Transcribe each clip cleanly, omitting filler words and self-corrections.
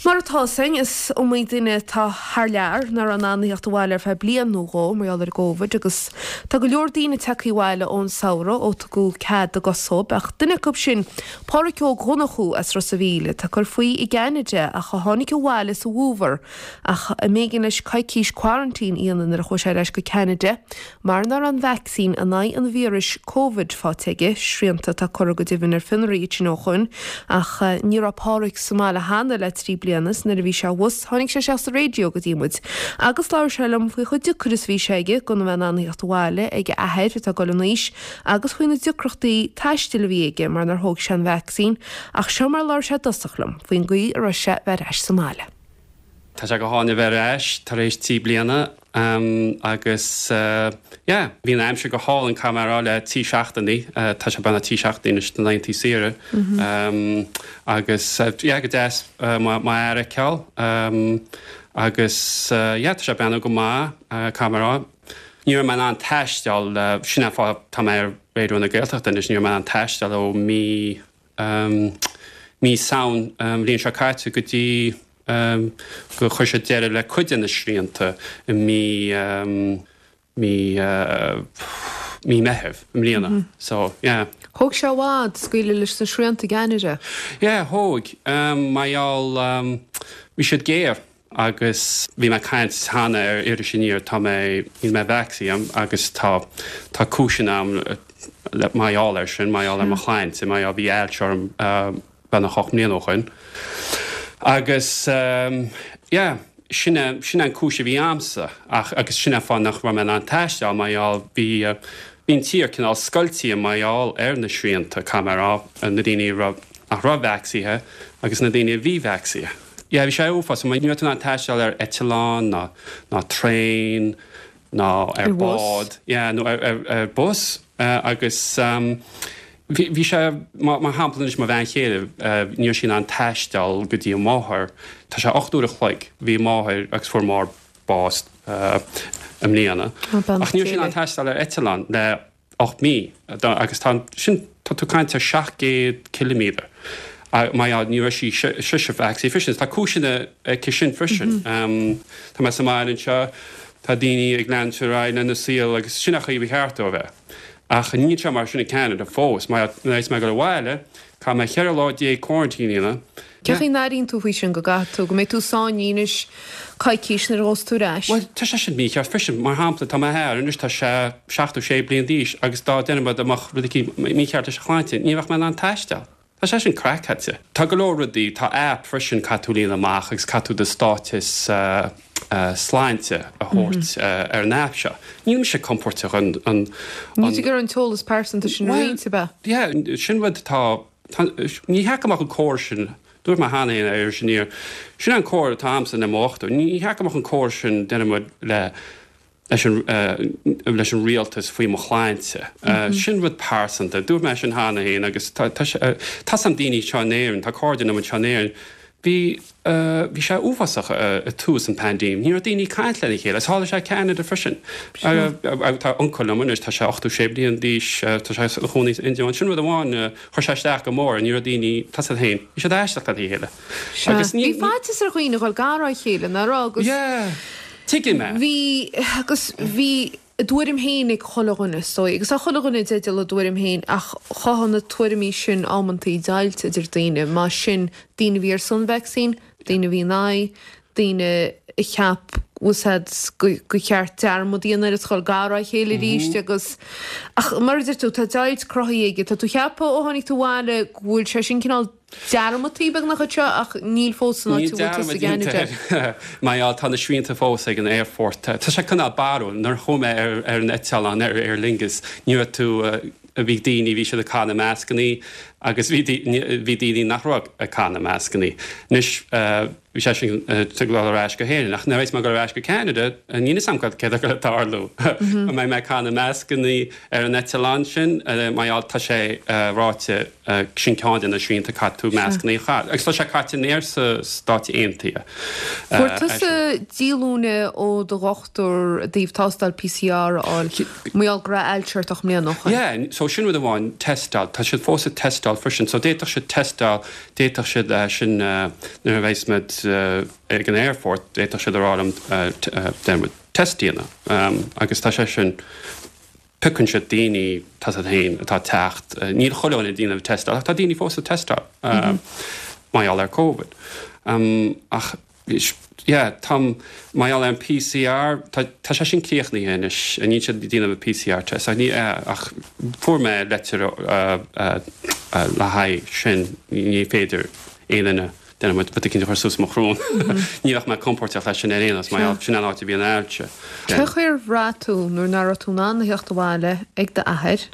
Mar atá 'fhios a'inn, is iomaí duine atá thar lear nach raibh in ann a theacht abhaile ar feadh bliain nó dhó mar gheall ar an gCóivid agus tá go leor daoine tagtha abhaile ón samhradh ó tugadh cead a gcos dhóibh ach duine acu sin Páraic Óg Dhonnchú as Ros a' Mhíl atá ag cur faoi i gCeanada ach a tháinig abhaile sa bhfómhar ach a mb'éigean leis coicís quarantine a dhéanamh nuair a chuaigh sé ar ais go Ceanada Mar nach raibh an vacsaín in aghaidh an víris Covid faighte aige, srianta atá curtha go deimhin ar fionraí ansin ó shoin, ach ní raibh Páraic sa mbaile cheana le 3 bliana is nuair a bhí sé abhus tháinig sé isteach sa raidió go dtí muid agus labhair sé liom faoi chomh deacair is a bhí sé aige gan a bheith in ann a theacht abhaile ag a athair atá ag dul in aois agus faoi na deacrachtaí taistil a bhí aige mar nár thóg sé an vacsaín ach seo mar a labhair sé i dtosach liom faoin gcaoi a raibh sé bheith ar ais sa mbaile. Tá sé go hálainn a bheith ar ais tar éis 3 bliana agus yeah bhí an aimsir go hálainn caithfidh mé a rá le 3 seachtainí, tá sé beagnach 3 seachtainí anois na laethanta saoire agus yeah go deas m'athair a fheiceáil agus yeah tá sé ag breathnú go maith caithfidh mé a rá. Ní raibh mé in ann taisteal, sin an fáth tá mé ar Raidió na Gaeltachta anois, ní raibh mé in ann taisteal ó mí mí Samhain an bhliain seo caite go dtí gur chuir siad deireadh le cuid de na srianta i mí mí mí Meitheamh i mbliana. So, yeah. Thóg sé i bhfad scaoileadh leis na srianta i gCeanada. Yeah, thóg. Mar gheall, bhí siad géar. Agus bhí mé ag caint cheana ar Iris Aniar, tá mé, níl mé vacsaínithe agus tá, tá cúiseanna a'm le, mar gheall air sin, mar gheall ar mo shláinte, mar gheall, bhí ailse orm beagnach 8 mbliana ó shoin. Agus yeah, sin é, sin é an cúis a bhí a'msa ach, agus sin é an fáth nach raibh mé in ann taisteal, mar gheall, bhí, bhí an tír cineál scoiltithe mar gheall ar na srianta, caithfidh mé a rá, na daoine a raibh, nach raibh vacsaínithe agus na daoine a bhí vacsaínithe. Yeah, bhí sé uafásach. Ní raibh tú in ann taisteal ar eitleán ná ná traein ná ar Ar bhus. bád. Yeah, nó ar ar ar bus. Agus bhí bhí sé mar mar shampla anois mo bhean chéile, ní raibh sí in ann taisteal go dtí a máthair. Tá sé 8 uair a chloig. Bhí a máthair agus fuair a máthair bás i mbliana. Beannacht Ach ní raibh Dé sí in ann léi. taisteal ar eitleán le 8 mí agus tá sin, tá tú ag caint ar 700 ciliméadar mar gheall ní raibh sí sise vacsaínithe freisin. Tá cúiseanna aici sin freisin. Tá mé sa mbaile anseo, tá daoine ag leanúint ar aghaidh lena saol agus sin an chaoi ba cheart dó a bheith. Ach níl sé mar sin i Ceanada fós. Mar nuair a bheas mé ag dul abhaile, caithfidh mé 14 lá quarantine a dhéanamh. Cén chaoi a n-airíonn tú faoi sin, go gcaithfidh tú, go mbeidh tú sáinnithe anois coicís nuair a ghabhfas tú ar ais? Bhuel, tá sé sin mícheart freisin. Mar shampla, tá m'athair anois, tá sé 76 bliain d'aois agus dá déarfaidh muid dá mbeadh rud eicínt mícheart leis a shláinte, ní bheadh mé in ann taisteal. Tá sé sin craiceáilte. Tá go leor rudaí, tá app freisin, caithfidh tú líonadh amach agus caithfidh tú do stáiteas sláinte a thabhairt ar an app seo. Níl mise compordach an, an, Níl tú ag iarraidh an t-eolas pearsanta sin a Bhuel, roinnt, ab ea? yeah, sin rud atá Ní cheart go mbeadh an córas sin, dúirt mé cheana féin ar Iris Aniar, sin an comhairle atá a'msa le mo dhochtúir, ní cheart go mbeadh an córas sin, déarfaidh muid, le leis an leis an rialtas faoi mo shláinte. Sin rud pearsanta. Dúirt mé sin cheana féin agus tá tá sé tá 's a'm daoine anseo in Éirinn, tá cairde liom anseo in Éirinn, Bhí, bhí sé uafásach i tús an paindéim. Ní raibh daoine ag caint lena chéile. Is tharla sé i Ceanada freisin. Tá uncail liom anois, tá sé 86 bliain d'aois, tá sé ina chónaí san India. Sin rud amháin, chuir sé isteach go mór, ní raibh daoine, tá 's agat féin, bhí siad ag éisteacht lena chéile. Sea. Agus ní, Bhí faitíos ar dhaoine a dhul gar dá chéile, nach raibh? Agus. Yeah, tuigim é. Bhí, agus bhí. a dtuairim féin ag chuile dhuine, is dóigh, agus tá chuile dhuine i dteideal a dtuairim féin, ach chothaigh na tuairimí sin amantaí deighilt idir daoine, más sin, daoine a bhí ar son vacsaín, daoine a bhí in aghaidh, daoine a cheap, bhfuil 's a'd, gur cheart dearmad a dhéanamh air is dhul gar dá chéile arís agus, ach mar a deir tú, tá deighilt cruthaithe aige, tá tú ag ceapadh ó tháinig tú abhaile go bhfuil sé sin cineál dearmadtaí beagnach anseo ach níl fós san áit Níl a bhfuil tusa dearmad i gCeanada. déanta air mar gheall tá na srianta fós ag an aerfort. Tá sé cineál barrúil. Nuair a chuaigh mé ar ar an eitleán ar Aer Lingus ní raibh tú bhí daoine bhí siad ag caitheamh na mascannaí agus bhí bhí daoine nach raibh ag caitheamh na mascannaí. Anois bhí sé sin ag dul ar ais go hÉirinn ach nuair a bheas mé ag dul ar ais go Ceanada níl fhios a'm cad céard atá ag tarlú. An mbeidh mé ag caitheamh na mascannaí ar an eitleán sin mar gheall tá sé ráite Sin ceann de na srianta caithfidh tú mascannaí a chaitheamh. Agus tá sé caite in aer sa Stáit Aontaithe. Fuair tusa díolúine ó do dhochtúir i dtaobh tástáil PCR a fháil mar gheall go raibh ailse ort 8 mbliana ó shoin. Yeah, so sin rud amháin, teisteáil. Tá siad fós ag teisteáil freisin. So d'fhéadfadh siad teisteáil, d'fhéadfadh siad sin nuair a bheas muid. ag an aerfort, d'fhéadfadh siad a rá liom déarfaidh muid test a dhéanamh agus tá sé sin, piocann siad daoine, tá a fhios agat féin, atá ag teacht, níl chuile dhuine ag déanamh test ach tá daoine fós ag teisteáil mar gheall ar Covid. Ach yeah, táim, mar gheall ar an PCR, tá, tá sé sin críochnaithe anois, níl siad ag déanamh an PCR test ach ní, ach fuair mé leitir le haghaidh sin, ní féidir aon duine, déarfaidh muid, rud éicint a chur suas mo shrón. Ní bheadh mé compóirteach leis sin ar aon nós, mar gheall, sin an áit a bhíonn ailse. Cé chaoi ar bhraith tú nuair nach raibh tú in ann a theacht abhaile ag d'athair?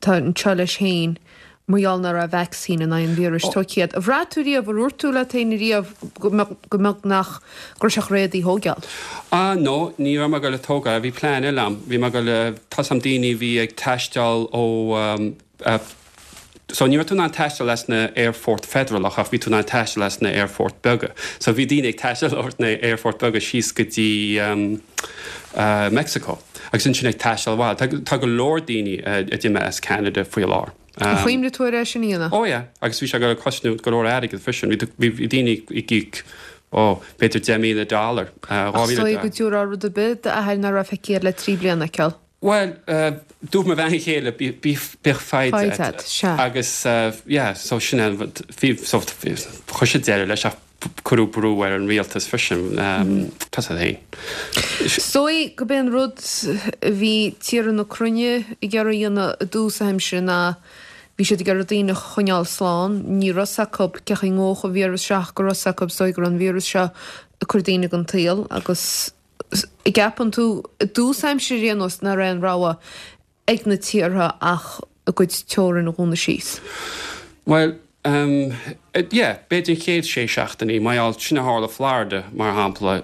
atá anseo leis féin mar gheall nach raibh vacsaín in aghaidh an víris tógtha agat. Ar bhraith tú riamh, ar dhúirt tú leat féin riamh go mbeadh, go mbeadh nach, go raibh sé réidh í a thógáil? Ah no, ní raibh mé ag dul a tógáil, bhí plean eile a'm, bhí mé ag dul a, tá's a'm daoine a bhí ag taisteal ó eh, so ní raibh tú in ann taisteal as na aerfort federalach ach bhí tú in ann taisteal as na aerfort beaga. So bhí daoine ag taisteal ó na aerfort beaga síos go dtí eh, Mexico. Agus ansin ag taisteal abhaile. Tá, tá go leor daoine a d'imigh as Ceanada faoi láthair. Ar chuimhnigh tú ar é sin a dhéanamh? Oh yeah, agus bhí sé ag dul a cosnú go leor airgid freisin. Bhí, bhí, bhí daoine ag íoc, oh, b'fhéidir 10,000 dollar, Ach 2,000 is dóigh go dtabharfá rud ar bith d'athair nach raibh feicthe agat le 3 bliana a fheiceáil. Bhuel, dúirt mo bhean chéile, bí, bí, bíodh foighid Foighid agat. sea. Agus, yeah, so sin é an rud, bhí, so, chuir siad deireadh leis ach cuireadh brú ar an rialtas freisin, tá a fhios agat féin. Is dóigh gurb é an rud a bhí tíortha na cruinne ag iarraidh a dhéanamh i dtús na haimsire ná bhí siad ag iarraidh daoine a choinneáil slán. Ní raibh 's acu cé chaoi ngabhfadh an víreas seo ach go raibh 's acu is dóigh go raibh an víreas seo ag cur daoine den tsaol agus an gceapann tú i dtús aimsire ar aon nós nach raibh aon rogha ag na tíortha ach a gcuid teorann a dhúnadh síos? Bhuel, yeah, b'fhéidir an chéad sé seachtainí, mar gheall, sin a tharla Florida, mar shampla,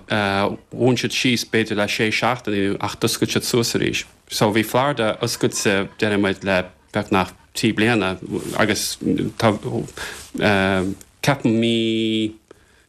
dhún siad síos b'fhéidir le sé seachtainí ach d'oscail siad suas arís. So bhí Florida oscailte, déarfaidh muid, le beagnach 3 bliana agus tá, ceapaim mí,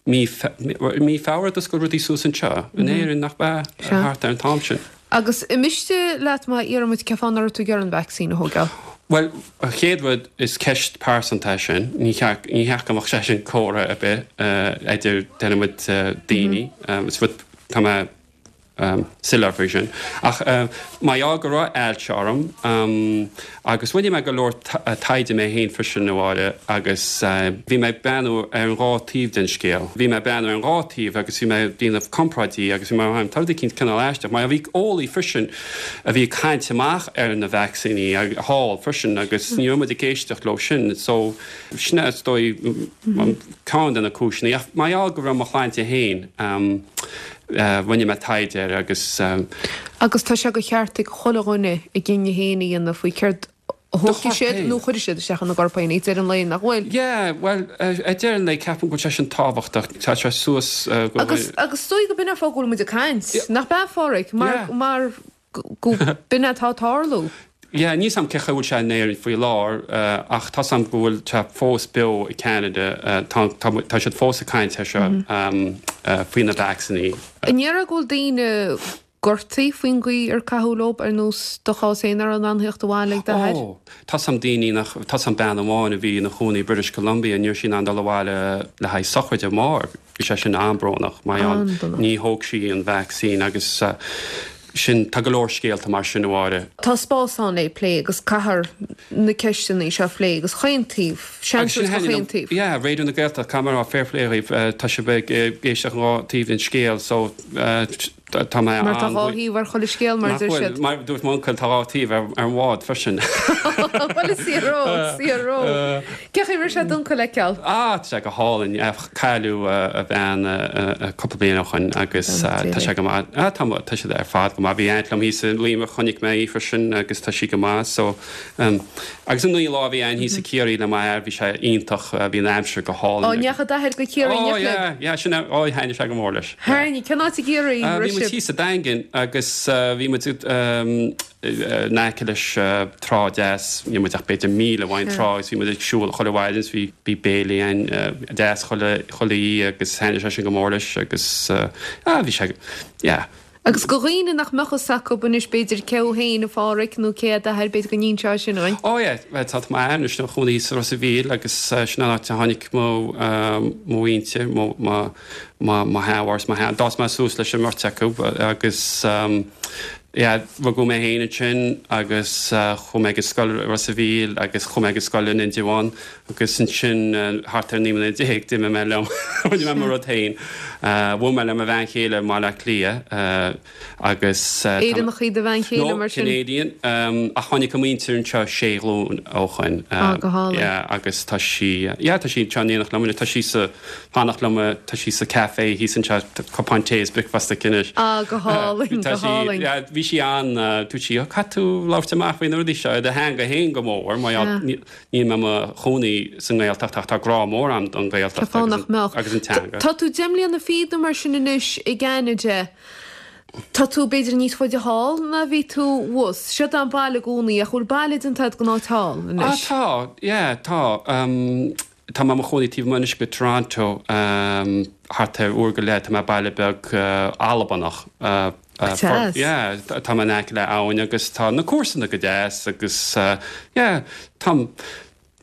Mí Mí Feabhra d'oscail rudaí suas anseo in Éirinn, nach ea? Thart ar an t-am sin. Agus an miste leat má iarrann muid cén fáth nach raibh tú ag iarraidh an vacsaín a thógáil? Bhuel, an chéad rud, is ceist pearsanta é sin. Ní cheart, ní cheart go mbeadh sé sin comhrá ar bith idir, déarfaidh muid, daoine. Is rud, tá mé soiléir faoi sin. Ach mar gheall go raibh ailse orm agus rinne mé go leor taighde mé féin freisin a Mháire agus bhí mé ag breathnú ar an dhá taobh den scéal. Bhí mé ag breathnú ar an dhá taobh agus bhí mé ag déanamh comparáidí agus bhí mé ag tá rud éicint cineál aisteach mar bhí eolaí freisin a bhí ag caint amach ar na vacsaíní thall freisin agus ní raibh muid ag éisteacht leo sin so sin é is dóigh ceann de na cúiseanna. Ach mar gheall go raibh mo shláinte féin Rinne mé taighde air agus. Agus tá sé de cheart ag chuile dhuine a gcinneadh féin a dhéanamh faoi céard a thógfaidh siad nó a chuirfidh siad isteach ina gcorp féin ag deireadh an lae, nach bhfuil? Yeah, bhuel, ag deireadh an lae ceapaim go bhfuil sé sin tábhachtach. Tá sé suas go. Agus, agus is dóigh go b'in an fáth go bhfuil muid ag caint, nach b'ea, a Pháraic? Mar, mar. go b'in atá ag tarlú. Yeah, níl 's a'm cé chaoi bhfuil sé in Éirinn faoi láthair ach tá 's a'm go bhfuil sé fós beo i Canada. Tá, tá, tá siad fós ag caint air seo faoi na vacsaíní. An ndéarfá go bhfuil daoine gortaithe faoin gcaoi ar caitheadh leo, ar nós do chás féin nach raibh in ann theacht abhaile ag d'athair? Ó, tá 's a'm daoine nach, tá 's a'm bean amháin a bhí ina chónaí i British Columbia, ní raibh sí in ann dul abhaile le haghaidh sochraide a máthar. Bhí sé sin an-brónach mar gheall ní thóg sí an vacsaín agus sin, tá go leor scéalta mar sin a Mháire. Tá spás ann le plé agus caithfear na ceisteanna seo a phlé agus chaon taobh, seans go chaon taobh. Yeah, Raidió na Gaeltachta, caithfidh mé a rá fair play dhaoibh, tá sibh ag éisteacht an dhá taobh den scéal so Tá mé Mar tá dhá thaobh ar chuile scéal, mar a deir siad. Mar a dúirt m'uncail, tá dhá thaobh ar an bhád freisin. Bhuel, is fíor dó, is fíor dó. Cén chaoi a raibh sé d'uncail a fheiceáil? Ah, tá sé go hálainn. Cailleadh a bhean cúpla bliain ó shoin agus tá sé go maith. Ah, tá, tá siad ar fad go maith. Bhí aint liom thíos i Luimneach, chonaic mé í freisin agus tá sí go maith. So, Agus an lá a bhí againn thíos i Ciarraí le m'athair, bhí sé iontach, bhí an aimsir go hálainn. Ó, ndeachaigh d'athair go Ciarraí oh, yeah, yeah, sin é, ó, thaitnigh sé go mór leis. Thaitnigh, cén áit i gCiarraí a raibh sibh? Bhí muid thíos sa Daingean agus bhí muid in aice leis trá deas, níl muid ach b'fhéidir míle uaidh an trá agus bhí muid ag siúl chuile mhaidin is bhí bhí béilí againn deas chuile chuile oíche agus thaitnigh sé sin go mór leis agus ah bhí sé, yeah. Agus do dhaoine nach mbeadh fhios acu anois b'fhéidir cé thú féin a Phádhraic nó cé é d'athair b'fhéidir go n-inseofá sin dhúinn. Ó yeah, bhuel tá m'athair anois ina chónaí sa Ros a' Mhíl agus sin an áit a tháinig mo mo mhuintir, mo mo mo mo sheanmháthair is mo shean, d'fhás mé suas leis an mbeirt acu agus yeah rugadh mé féin ansin agus chuaigh mé ag an scoil i Ros a' Mhíl agus chuaigh mé ag an scoil in Indreabhán Agus ansin, thart ar 19 mbliana, d'imigh mé liom, rinne mé mo rud féin. Bhuail mé le mo bhean chéile i mBaile Átha Cliath agus. Éireannach í do bhean chéile, No, mar sin? Canadian. Ach tháinig a muintir anseo sé ghlúin ó shoin. Ah, go hálainn. Yeah, agus tá sí, yeah, tá sí anseo in éineacht liom anois. Tá sí sa, fanacht liom, tá sí sa café thíos anseo, cupán tae is bricfeasta aici anois. Ah, go hálainn, go hálainn. Yeah, bhí sí an, dúirt sí, oh, caithfidh tú labhairt amach faoi na rudaí seo i do theanga féin go mór, mar gheall, Níl mé i mo chónaí sa nGaeltacht ach tá grá mór agam don Ghaeltacht Cén fáth nach mbeadh? agus an teanga. Tá tú deich mbliana fichead nó mar sin anois i gCeanada. Tá tú b'fhéidir níos faide thall ná bhí tú thuas. Seod é an baile i gcónaí ach bhfuil baile déanta agat den áit thall Ah anois? tá, yeah, tá. Tá mé i mo chónaí taobh amuigh anois de Toronto, thart ar uair go leith, tá mé i baile beag Albanach. Deas. Yeah, tá mé in aice le abhainn agus tá na comharsana go deas agus yeah, tá,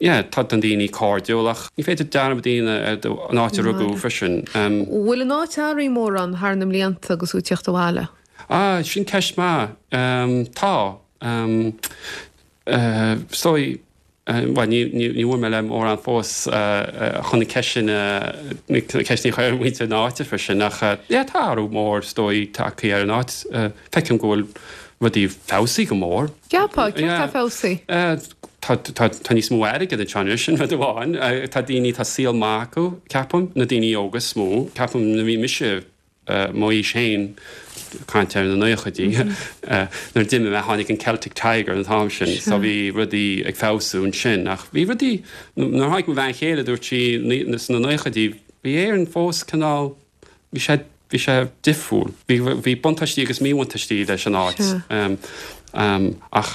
yeah, tá na daoine cairdiúil ach ní féidir dearmad a dhéanamh ar an áit a rugadh freisin. Bhfuil an áit athraithe mórán thar na mblianta agus tú ag tíocht abhaile? Ah, sin ceist maith. Tá. Is dóigh, bhuel, ní bhuail mé le mórán fós chun na ceist sin, na ceisteanna a chur ar mhuintir na háite freisin ach yeah tá athrú mór is dóigh tagtha ar an áit. Feicim go bhfuil rudaí feabhsaithe go mór. Ceapfá, céard atá feabhsaithe? Tá, tá, tá níos mó airgid anseo anois, sin rud amháin. Tá daoine, tá saol maith acu, ceapaim, na daoine óga is mó. Ceapaim nuair a bhí mise mo aois féin, caint ar na naochaidí, nuair a d'imigh mé tháinig an Celtic Tiger an t-am sin so bhí rudaí ag feabhsú ansin ach bhí rudaí, nuair a tháinig mo bhean chéile dúirt sí sna naochaidí bhí Éirinn fós cineál, bhí sé, bhí sé difriúil, bhí, bhí buntáistí agus míbhuntáistí leis an áit ach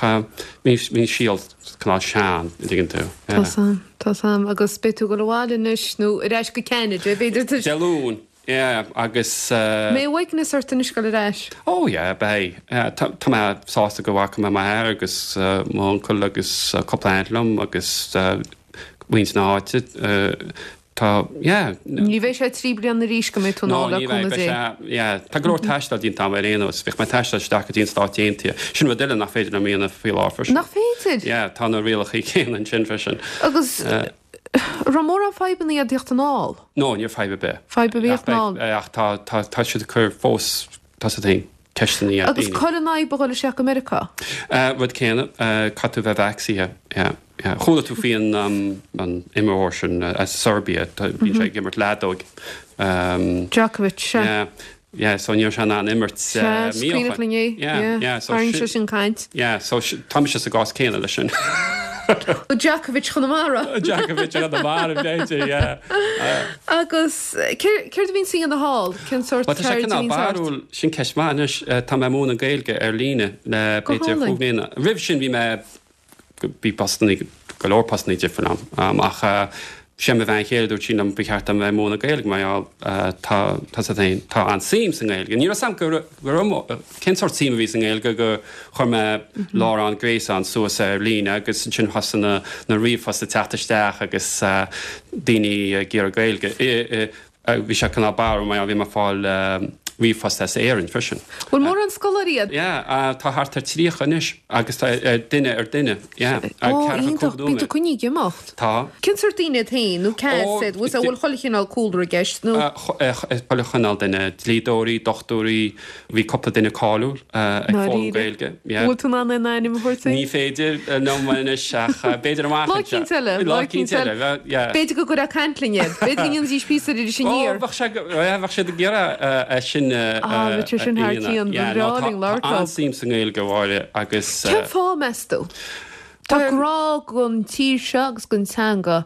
bhí, bhí an saol cineál sean, an dtuigeann tú. Tá 's a'm, tá 's a'm agus beidh tú ag dul abhaile anois nó ar ais go Ceanada b'fhéidir. Dé Luain. Yeah, agus. Mbeidh uaigneas ort anois dul ar ais? Oh yeah, beidh. Tá mé sásta go bhfaca mé m'athair agus m'uncail agus cúpla aunt liom agus muintir na háite. Tá, yeah. Ní bheidh sé 3 bliana arís go mbeidh tú anall le cúnamh Dé. No, ní bheidh, beidh sé, yeah. Tá go leor taistil déanta agam ar aon nós. Bhíodh mé ag taisteal isteach go dtí an Stáit Aontaithe. Sin rud eile nach féidir liom a dhéanamh faoi láthair freisin. Nach féidir? Yeah, tá na rialacha céanna ansin freisin. Agus. Raibh mórán fadhbanna ag tíocht anall? No, ní raibh fadhb ar bith. Fadhb ar bith anall? Ach tá, tá, tá siad ag cur fós, tá siad féin, ceisteanna ar daoine. Agus cá bhfuil an fhadhb a dhul isteach go Meiriceá? Rud céanna, caithfidh tú bheith vacsaíthe, yeah, yeah. Chuala tú faoi an, an imreoir sin as Serbia, bíonn sé ag imirt leadóig. Djokovic, sea. Yeah. Yeah, so ní raibh sé in ann imirt Sea, is cuimhneach linn é. Yeah, yeah, so Tharraing sé sin caint. Yeah, so tá mise sa gcás céanna leis sin. Djokovic Chonamara. Djokovic Chonamara, b'fhéidir, yeah. Agus céard a bhíonn sa dhéanamh thall? Cén sórt ceird a bhíonn ort? Bhuel, tá sé cineál barrúil, sin ceist mhaith anois. Tá mé ag múineadh Gaeilge ar líne le b'fhéidir chúig mbliana. Roimh sin bhí mé Bhí postannaí, go leor postannaí difriúil agam ach sé mo bhean chéile dúirt sí liom ba cheart dom bheith ag múineadh Gaeilge mar gheall tá, tá 's agat féin, tá an-suim sa nGaeilge. Ní raibh 's agam go raibh, cén sórt suim a bhí sa nGaeilge go chuir mé láithreán gréasáin suas ar líne agus ansin thosaigh na, na ríomhphoist ag teacht isteach agus daoine ag iarraidh Gaeilge. Bhí sé cineál barrúil mar bhí mé ag fáil ríomhphost as Éirinn freisin. Bhfuil mórán scoláirí agat? Yeah, tá thart ar 30 anois agus tá duine ar duine, yeah. Ó, iontach, bíonn tú coinnithe ag imeacht. Tá. Cén sórt daoine iad féin nó cé hiad, bhfuil bhfuil chuile chineál cúlra i gceist nó? Chuile chineál duine, dlíodóirí, dochtúirí, Bhí cúpla duine cáiliúil ag foghlaim Gaeilge. Bhfuil tú in ann aon ainm a thabhairt dúinn? Ní féidir liom anois ach b'fhéidir amach anseo. Lá eicínt eile. Lá eicínt eile. B'fhéidir go gcuirfeá ag caint linn iad. B'fhéidir go ndéanfaidís píosa ar Iris Aniar. Ó, bheadh sé, bheadh siad ag iarraidh é sin a Ah, bheadh sé sin thar cionn. Ba bhreá linn labhairt leo. Tá an-suim sa nGaeilge, a Mháire, agus. Cén fáth, meas tú? Tá grá don tír seo agus don teanga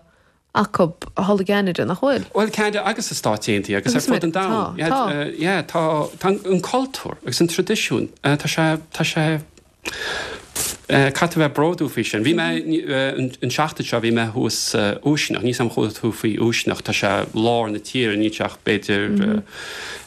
acu thall i gCeanada, nach bhfuil? Bhuel, Ceanada agus sna Stáit Aontaithe agus ar fud an domhain. Tá, tá. Yeah, tá, tá an cultúr agus an traidisiún, tá sé, tá sé. Caithfidh tú bheith bródúil faoi sin. Bhí mé, an seachtain seo, bhí mé thuas Uisneach, níl 's a'm chuala tú faoi Uisneach, tá sé lár na tíre, níl sé ach b'fhéidir,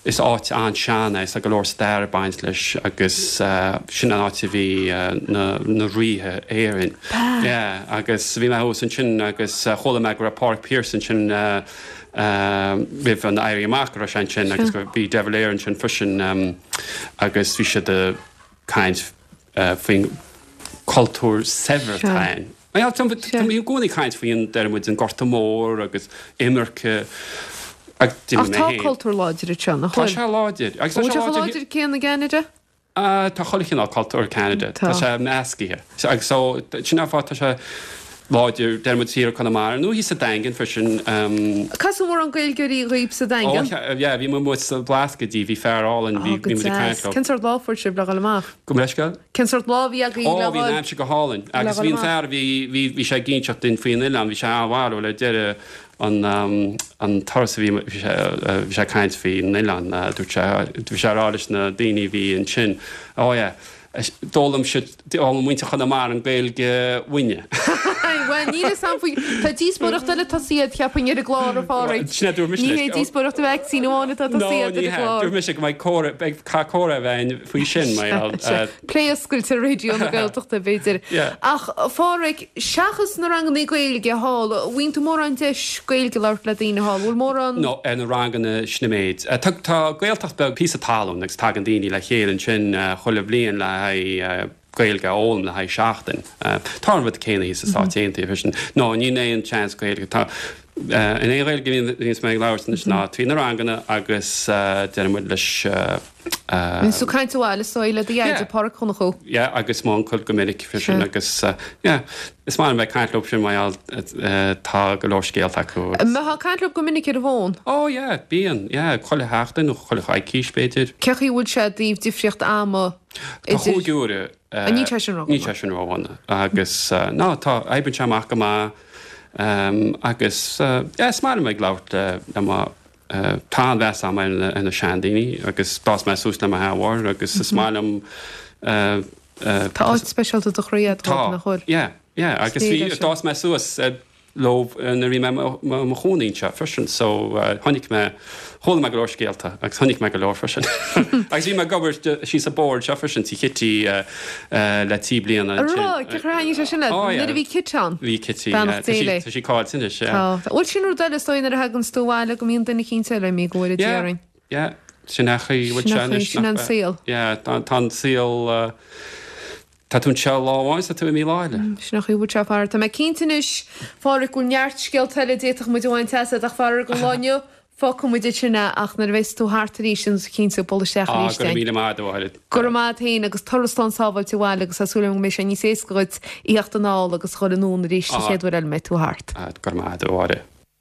is áit an-sean é, tá go leor stair ag baint leis agus sin an áit a bhí na na ríthe Éireann. Yeah, agus bhí mé thuas ansin agus chuala mé go raibh Pádraig Pearse ansin roimh an Éirí Amach go raibh sé ansin agus go bhí De Valera ansin freisin agus bhí siad ag caint faoin cultúr saibhir atá ann. Tá mé i gcónaí ag caint faoi an, deir muid, an Gorta Mór agus imirce ach Ach tá cultúr láidir anseo, nach bhfuil? Tá sé láidir. Agus tá sé chomh láidir céanna i gCeanada? Tá chuile chineál cultúr i gCeanada. Tá sé meascaithe. Agus so, sin an fáth tá sé láidir, deir muid thiar i Conamara nó thíos sa Daingean freisin. Casadh mórán Gaeilgeoirí dhaoib sa Daingean? Ó, yeah, bhí muid amuigh sa Bhlascaoid, bhí fear álainn, bhí muid ag caint leo. Cén sórt lá a fuair sibh le dhul amach? Gabh mo leithscéal? Cén sórt lá a bhí agaibh le dhul? Ó, bhí an aimsir go hálainn. Agus bhí an fear, bhí, bhí, bhí sé ag inseacht duinn faoin oileán, bhí sé an-bharrúil ar deireadh an, an turas a bhí, bhí sé, bhí sé ag caint faoin oileán, dúirt sé, bhí sé ag rá leis na daoine a bhí ansin, oh yeah, D'fhoghlaim siad, d'fhoghlaim muintir Chonamara an Ghaeilge uainne. Bhuel, níl fhios a'm faoi, tá díospóireacht eile tosaithe, cheapfainn, ar an gclár, a Phádraig. Sin é, dúirt mise leis. Ní hé díospóireacht an vacsaín amháin atá tosaithe ar an gclár. Dúirt mise go mbeidh comhrá, beidh, caithfidh comhrá a bheith againn faoi sin, mar gheall. Plé oscailte ar Raidió na Gaeltachta, b'fhéidir. Ach, a Phádraig, seachas na rangannaí Gaeilge thall, an bhfaigheann tú mórán deis Gaeilge a labhairt le daoine thall? Bhfuil mórán. No, ar na ranganna sin an méid. Tá, tá Gaeltacht beag, píosa talún agus tagann daoine le chéile ansin chuile bhliain le haghaidh Gaeilge a fhoghlaim le haghaidh seachtain. Tá an rud céanna thíos sna Stáit Aontaithe freisin. No, níl aon chance Gaeilge. Tá, an aon Ghaeilge a bhíonns mé ag labhairt anois ná trí na ranganna agus deireann muid leis, Bíonn tú ag caint abhaile is dóigh le do dheaide Páraic Ó Donnchú. Yeah agus m'uncail go minic freisin agus yeah is maith liom bheith ag caint leo sin mar gheall tá go leor scéalta acu agus. An mbeifeá ag caint leo go minic ar an bhfón? Oh yeah bíonn yeah chuile sheachtain nó chuile choicís b'fhéidir. Cé chaoi a bhfuil sé i dtaobh difríocht ama Tá idir. chúig uaire. Níl sé sin ródhona. Níl sé sin ródhona agus no tá oibríonn sé amach go maith agus yeah is maith liom ag labhairt le mo Tá an-mheas agam ar na seandaoine agus d'fhás mé suas le mo sheanmháthair agus is maith liom. Tá áit speisialta i do chroí agat dóibh, nach bhfuil? Tá, yeah, yeah agus bhí, d'fhás mé suas leo nuair a bhí mé i mo chónaí anseo freisin so chonaic mé, chuala mé go leor scéalta agus chonaic mé go leor freisin. Agus bhí mé ag obair síos an bóthar anseo freisin, tí Chití le trí bliana ansin. An raibh? Cén chaoi ar thaitnigh sé sin leat? Oh yeah. Nuair a bhí Kit ann? Bhí Kitty, yeah. Beannacht Dé léi. Tá sí caillte anois, yeah. Tá. Bhuel sin rud eile is dóigh nuair a thaganns tú abhaile go mbíonn duine eicínt eile imithe go bhfóire Dia orainn. Yeah, yeah. Sin é an chaoi a bhfuil sé anois. Sin an saol. Yeah, tá an saol, tá tú anseo lá amháin is tá tú imithe lá eile. Sin é an chaoi a bhfuil sé a Phádraig. Tá mé cinnte anois, Phádraig, go bhfuil neart scéalta eile a d'fhéadfadh muid a bhaint asat ach faraor don lá inniu, Fágfaidh muid ansin é ach nuair a bheas tú thart arís déanfaidh tú cinnte bualadh isteach arís Ah, go raibh míle maith agat, a Mháire. Go raibh maith agat féin agus turas slán sábháilte abhaile agus tá súil agam go mbeidh sé níos éasca dhuit a theacht anall agus a dhul anonn arís sa chéad uair eile a mbeidh tú thart. Ah, go raibh maith agat, a Mháire.